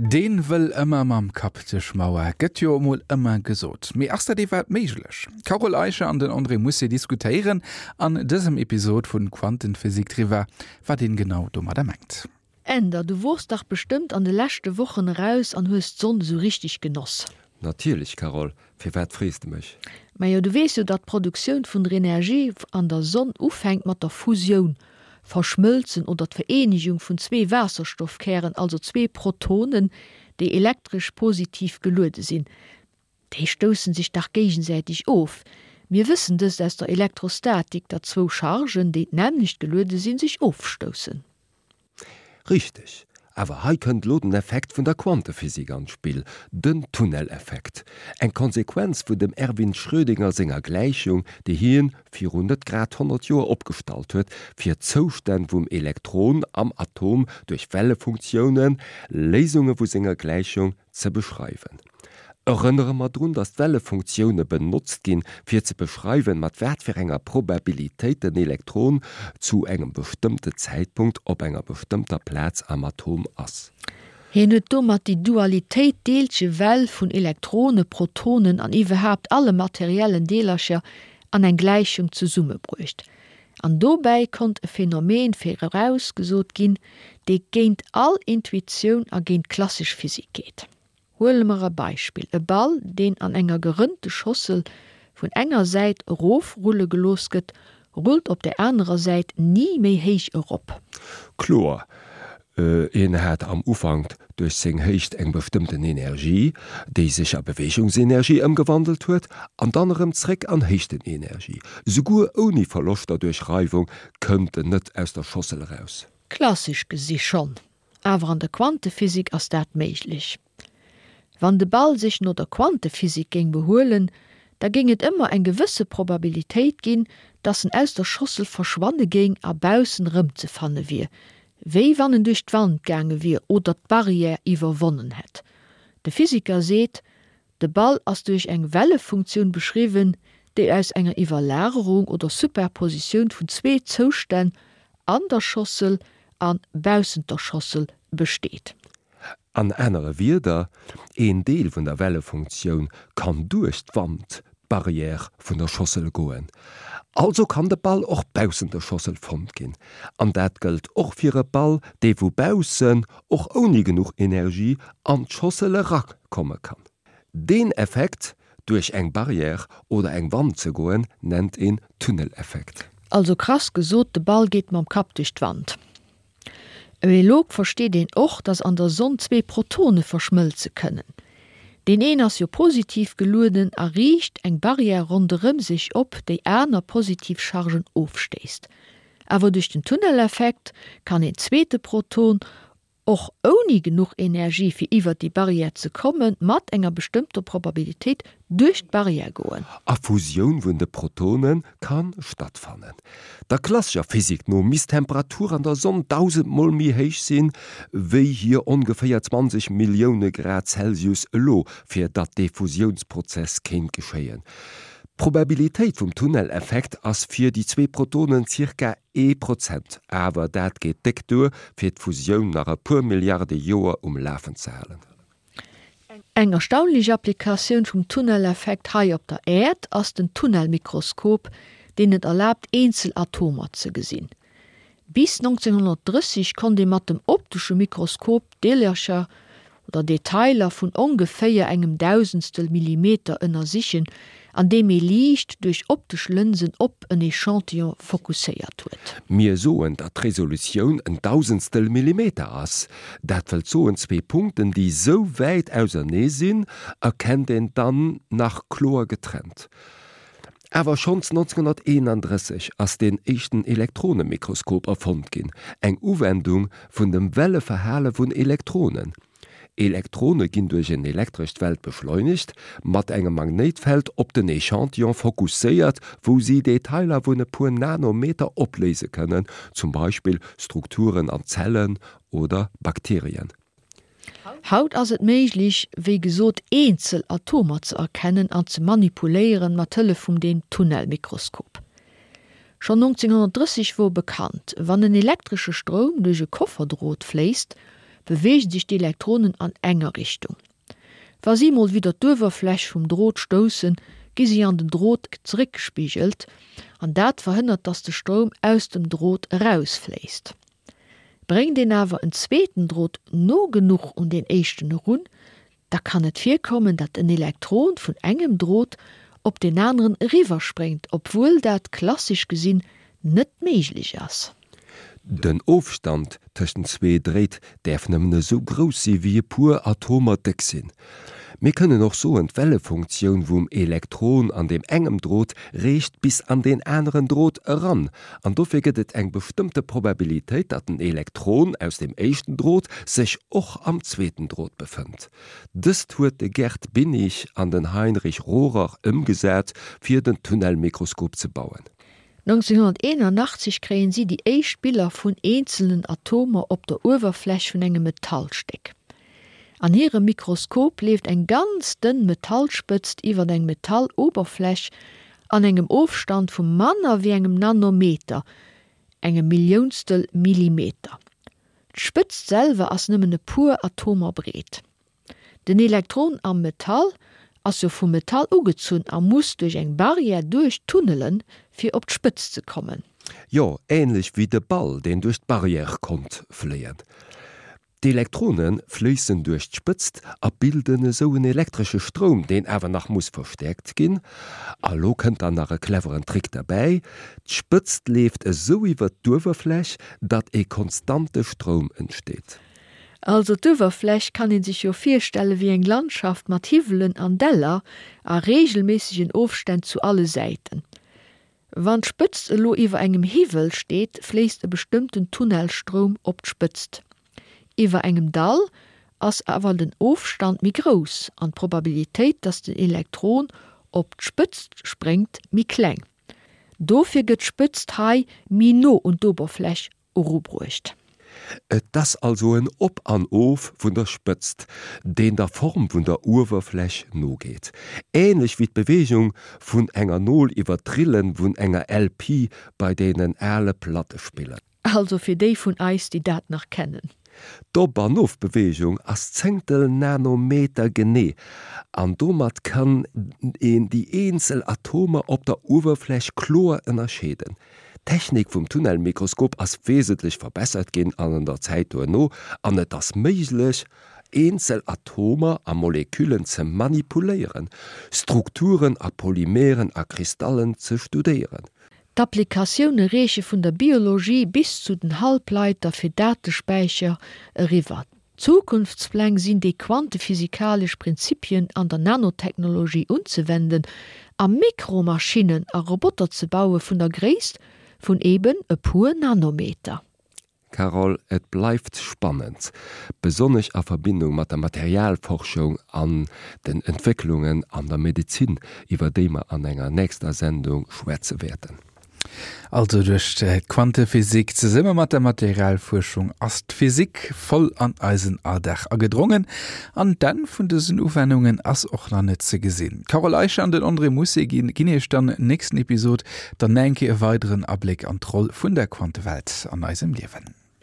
Deen wëll ëmmer mam Kapp duerch Mauer, gëtt jo emol ëmmer gesot. Mee ass dat iwwerhaapt méiglech? D'Carole Eicher an den André Mousset diskutéieren an dësem Episod vun Quantenphysik driwwer, wat een genau domadder mengt. Änder, du wors dach bestëmmt an de leschte Wochen eraus an hues d'Sonn esou richteg genoss. Natierlech, Carole, firwat frees de mech? Majo, du weess jo, datt d'Produktioun vun der Energie an der Sonn ufänkt mat der Fusioun, Verschmëlzen oder d'Vereenegung vun zwee Waasserstoffkären, also zwee Protonen, déi elektresch positiv geluede sinn. Déi stoussen sech dach géigesäiteg of. Mir wëssen dëst aus der Elektrostatik, datt zwou Chargen, déi d'nämmlecht geluede sinn, sech ofstoussen. Richteg. Awer hei kënnt elo den Effekt vun der Quantephysik an d'Spill, den Tunneleffekt. Eng Konsequenz vun dem Erwin Schrödinger senger Gläichung, déi hien virun net grad 100 Joer opgestallt huet, fir d'Zoustänn vum Elektron am Atom duerch Wellefunktiounen, Léisunge vu senger Gläichung, ze beschreiwen. Erënnere mer drun, datt d'Wellefunktioune benotzt ginn, fir ze beschreiwen, mat wat fir enger Probabilitéit den Elektron zu engem bestëmmte Zäitpunkt op enger bestëmmter Plaz am Atom ass. Hien huet domat déi Dualitéit Deelche-Well vun Elektrone, Protonen an iwwerhaapt alle materiellen Deelercher an eng Gläichung zesummebruecht. An dobäi konnt e Phänomen virausgesot ginn, dee géint all Intuitioun a géint d'klassesch Physik geet. Huele mer e Beispill, E Ball, deen an enger gerënnte Schossel vun enger Säit erof rulle gelooss gëtt, rullt op der anerer Säit ni méi héich erop. Kloer, en hat am Ufank duerch seng Héicht eng bestëmmten Energie, déi sech a Beweegungsenergie ëmgewandelt huet, an dann erëm zréck an Héichtenenergie. Souguer ouni Verloschter duerch Reiwung kënnt en net aus der Schossel eraus. Klassesch gesi schonn. Awer an der Quantephysik ass dat méiglech. Wann de Ball sech no der Quantephysik géing behuelen, da géing et ëmmer eng gewësse Probabilitéit ginn, dass en aus der Schossel verschwanne géing a baussen erëmzefanne wier, wéi wann en duerch d'Wand gaange wier oder d'Barrière iwwerwonnen hätt. De Physiker seet, De Ball ass duerch eng Wellefunktioun beschriwwen, déi aus enger Iwwerlagerung oder Superpositioun vun zwee Zoustänn an der Schossel a baussent der Schossel besteet. An anere Wierder, een Deel vun der Wellefunktioun kann duerch d'Wand, d'Barrière vun der Schossel goen. Also kann de Ball och baussent der Schossel fonnt ginn. An dat gëllt och fir e Ball, dee vu baussen, och ouni genuch Energie, an d'Schossel erakomme kann. Deen Effekt, duerch eng Barrière oder eng Wand ze goen, nennt een Tunneleffekt. Also krass gesot, de Ball geet mam Kapp duerch d'Wand. Elo versteet een och, dass an der Sonn zwee Protone verschmëlze kënnen. Deen een ass jo positiv gelueden a riicht eng Barrière ronderëm sech op, déi aner positiv Chargen ofstéisst. Awer duerch den Tunneleffekt kann een zweete Proton, och ouni genuch Energie fir iwwert déi Barrière ze kommen, mat enger bestëmmter Probabilitéit duerch d'Barrière goen. A Fusioun vun de Protone ka stattfannen. Der klassescher Physik no misst d'Temperatur an der Sonn dausendmol méi héich sinn, wéi hir ongeféier 20 Millioune Grad Celsius elo, fir datt dee Fusiounsprozess kéint geschéien. D'Probabilitéit vum Tunneleffekt ass fir déi zwee Protonen zirka ee Prozent, awer dat geet déck duer, fir d'Fusioun nach e puer Milliarde Joer um Lafen ze halen. Eng erstaunlech Applikatioun vum Tunneleffekt hei op der Äerd ass den Tunnelmikroskop, deen et erlaabt eenzel Atomer ze gesinn. Bis 1930 konnt ee mat dem optesche Mikroskop Deelercher oder Detailer vun ongeféier engem Dausendstel Millimeter ënnersichen, andeem ee Liicht duerch optesch Lënsen op en Echantillon fokusséiert huet. Mir soen, datt d'Resolutioun en Dausendstel Millimeter ass. Dat wëllt soen, zwee Punkten, déi sou wäit ausernee sinn, erkennt een dann nach kloer getrennt. Awer schonns 1931 ass deen éischten Elektronemikroskop erfonnt ginn, eng Uwendung vun dem Welleverhale vun Elektronen. Elektrone ginn duerch en elektrescht Feld beschleunegt, mat engem Magnéitfeld op den Echantillon fokusséiert, wou si Detailer vun e puer Nanometer opléise kënnen, zum Beispill Strukturen an Zellen oder Bakterien. Haut ass et méiglech, wéi gesot, eenzel Atomer ze erkennen an ze manipuléieren mat Hëllef vum deem Tunnelmikroskop. Schonn 1930 wor bekannt, wann en elektresche Stroum duerch e Kofferdrot fléisst, beweege sech d'Elektronen an enger Richtung. Wa si mol widder d'Uewerfläch vum Drot stoussen, gi si an den Drot zeréckgespigelt an dat verhënnert, dass de Stroum aus dem Drot erausfléisst. Bréngt een awer en zweeten Drot no genuch un deen éischten erun, da kann et virkommen, datt en Elektron vun engem Drot op deen aneren eriwwerspréngt, obwuel dat klassesch gesinn net méiglech ass. Den Ofstand tëschent zwee Dréit däerf nëmmen esou grouss si wéi e puer Atomer déck sinn. Mir kënnen och soen, d'Wellefunktioun vum Elektron an deem engem Drot reecht bis an deen aneren Drot eran, an dofir gëtt et eng bestëmmte Probabilitéit, datt den Elektron aus dem éischten Drot sech och am zweeten Drot befënnt. Dëst huet de Gerd Binnig an den Heinrich Rohrer ëmgesat fir den Tunnelmikroskop ze bauen. 1981 kréien si déi éischt Biller vun eenzelnen Atomer op der Uewerfläch vun engem Metallstéck. An hirem Mikroskop leeft eng ganz dënn Metallspëtzt iwwer eng Metalloberfläch an engem Ofstand vu manner wéi engem Nanometer, engem Milliounstel Millimeter. D'Spëtzt selwer ass nëmmen e puer Atomer breet. Den Elektron am Metall ass jo vum Metall ugezunn a muss duerch eng Barrière duerch tunnelen, fir op d'Spëtzt ze kommen. Jo, ähnlech wéi de Ball, deen duerch d'Barrière konnt fléien. D'Elektrone fléissen duerch d'Spëtzt a bilden esou en elektresche Stroum, deen awer nach muss verstäerkt ginn. A lo kënnt dann nach e cleveren Trick derbäi, D'Spëtzt leeft esou iwwer d'Uewerfläch, datt e konstante Stroum entsteet. Also d'Uewerfläch kann een sech jo virstelle wéi eng Landschaft mat Hiwwelen an Däller a reegelméissegen Ofstänn zu alle Säiten. Wann d'Spëtzt elo iwwer engem Hiwwel steet, fléisst e bestëmmten Tunnelstroum op d'Spëtzt. Iwwer engem Dall ass awer den Ofstand méi grouss an d'Probabilitéit, dass den Elektron op d'Spëtzt spréngt, méi kleng. Dofir gëtt d'Spëtzt hei méi no un d'Oberfläch erubruecht. Et ass also en Op an Of vun der Spëtzt, deen der Form vun der Uewerfläch nogeet. Ähnlech wéi d'Beweegung vun enger Nol iwwer d'Rille vun enger LP bei deenen ale Plattespiller. Also fir déi vun eis, déi dat nach kennen. D'Op an Ofbeweegung ass Zéngtel Nanometer genee an domat kann een déi eenzel Atomer op der Uewerfläch kloer ënnerscheeden. D'Technik vum Tunnelmikroskop ass wesentlech verbessert ginn an der Zäit duerno an et ass méiglech, eenzel Atomer a Moleküllen ze manipuléieren, Strukturen a Polymeren a Kristallen ze studéieren. D'Applikatioune reeche vun der Biologie bis zu den Halbleiter fir Datespäicher eriwwer. Zukunftspläng sinn déi quantephysikalesch Prinzipien an der Nanotechnologie unzewenden a Mikromaschinnen a Roboter ze baue vun der Gréisst vun eben e puer Nanometer. Carole, et bleift spannend, besonnesch a Verbindung mat der Materialforschung an den Entwécklungen an der Medezin, iwwer déi mer an enger nächster Sendung schwätze wäerten. Also duerch d'Quantephysik zesumme mat der Materialfuerschung ass d'Physik voll an eisen Alldag agedrongen an d'Enn vun dësen Uwennungen ass och nach net ze gesinn. D'Carole Eicher an den André Mousset ginn iech dann nächsten Episod dann nach eng Kéier e weideren Abléck an d'Roll vun der Quantewelt an eisem Liewen.